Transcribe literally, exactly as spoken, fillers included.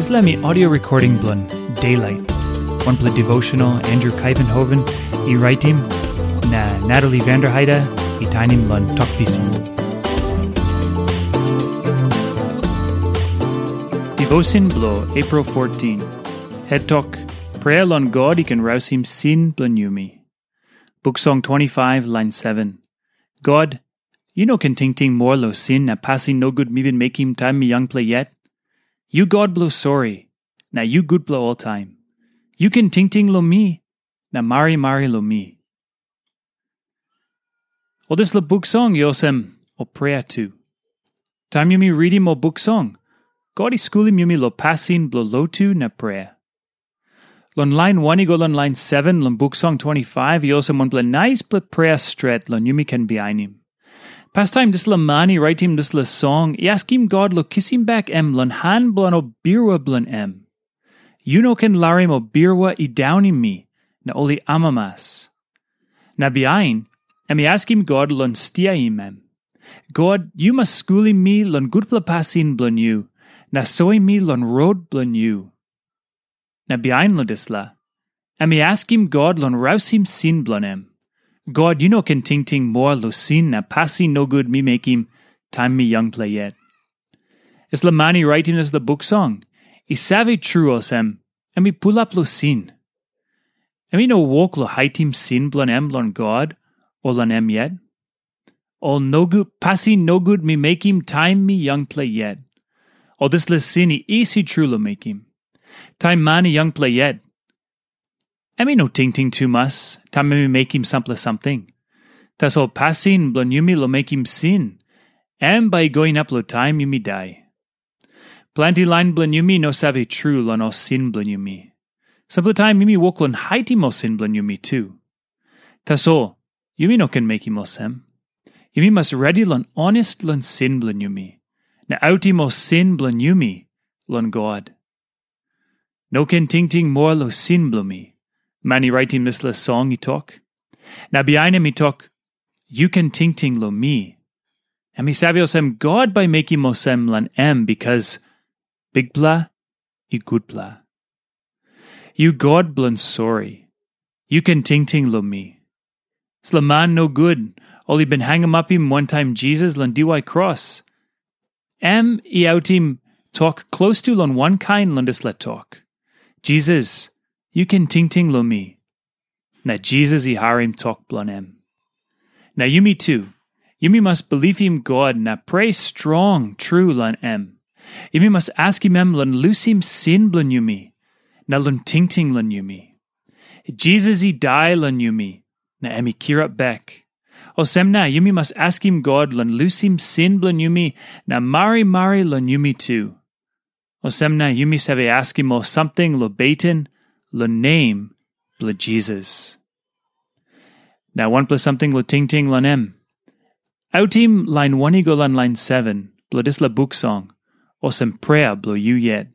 Dispela mi audio recording bilong Daylight, wanpela devotional Andrew Kaivenhoven i raitim, na Natalie Vanderheide i tainim long Tok Pisin. Devotion bilong April fourteen. Het tok, Prea long God i ken rausim sin bilong yumi. Buk Song twenty-five, lain seven. God, yu no ken tingting moa long sin na pasin nogut mi bin mekim taim mi yangpela yet. Yu God bilong sori, na yu gutpela oltaim. Yu ken tingting long mi, na marimari long mi. Ol dispela buk song i olsem ol prea tu. Taim yumi ritim ol buk song, God i skulim yumi long pasin bilong lotu na prea. Long lain wan i go long lain seven long Buk Song twenty-five i olsem wanpela naispela prea stret long yumi ken bihainim. Pastaim dispela man i raitim dispela song i askim God long kisim bek em long han bilong ol birua bilong em. Yu no ken larim ol birua i daunim mi, na ol i amamas. Na bihain, em i askim God long stiaim em. God, yu mas skulim mi long gutpela pasin bilong yu, na soim mi long rot bilong yu. Na bihain long dispela, em i askim God long rausim sin bilong em. God, yu no ken tingting moa long sin na pasin nogut mi mekim taim mi yangpela yet. Dispela man i raitim dispela buk song, i save tru olsem, em i pulap long sin. Em i no wok long haitim sin bilong em long God o long em yet. Ol nogut, pasin nogut mi mekim taim mi yangpela yet. Ol dispela sin i isi tru long mekim. Taim man i yangpela yet, em i no tingting tumas taim em i mekim sampela samting. Tasol pasin bilong yumi long mekim sin, em bai i go inap long taim yumi dai. Planti lain bilong yumi no save tru long ol sin bilong yumi. Sampela taim yumi wok long haitim ol sin bilong yumi tu. Tasol, yumi no ken mekim olsem. Yumi mas redi long honest long sin bilong yumi, na autim ol sin bilong yumi long God. No ken tingting moa long sin bilong mi, man i raitim dispela song i tok. Na bihain em i tok, yu ken tingting long mi. Em i save olsem God bai mekim olsem long em, bikas Bikpela i gutpela. Yu God bilong sori, yu ken tingting long mi. Dispela man nogut, ol i bin hangamapim wantaim Jisas long diwai kros. Em i autim tok klostu long wankain long dispela tok. Jisas, yu ken tingting long mi. Na Jisas i harim tok bilong em. Na yumi tu, yumi mas bilipim God na prea strong tru long em. Yumi mas askim em long lusim sin bilong yumi, na long tingting long yumi. Jisas i dai long yumi, na em i kirap bek. Olsem na yumi mas askim God long lusim sin bilong yumi na marimari long yumi tu. Olsem na yumi save askim ol samting long beten long nem bilong Jisas. Na wanpela samting long tingting long em. Autim lain wan i go long lain seven bilong dispela buk song, olsem prea bilong yu yet.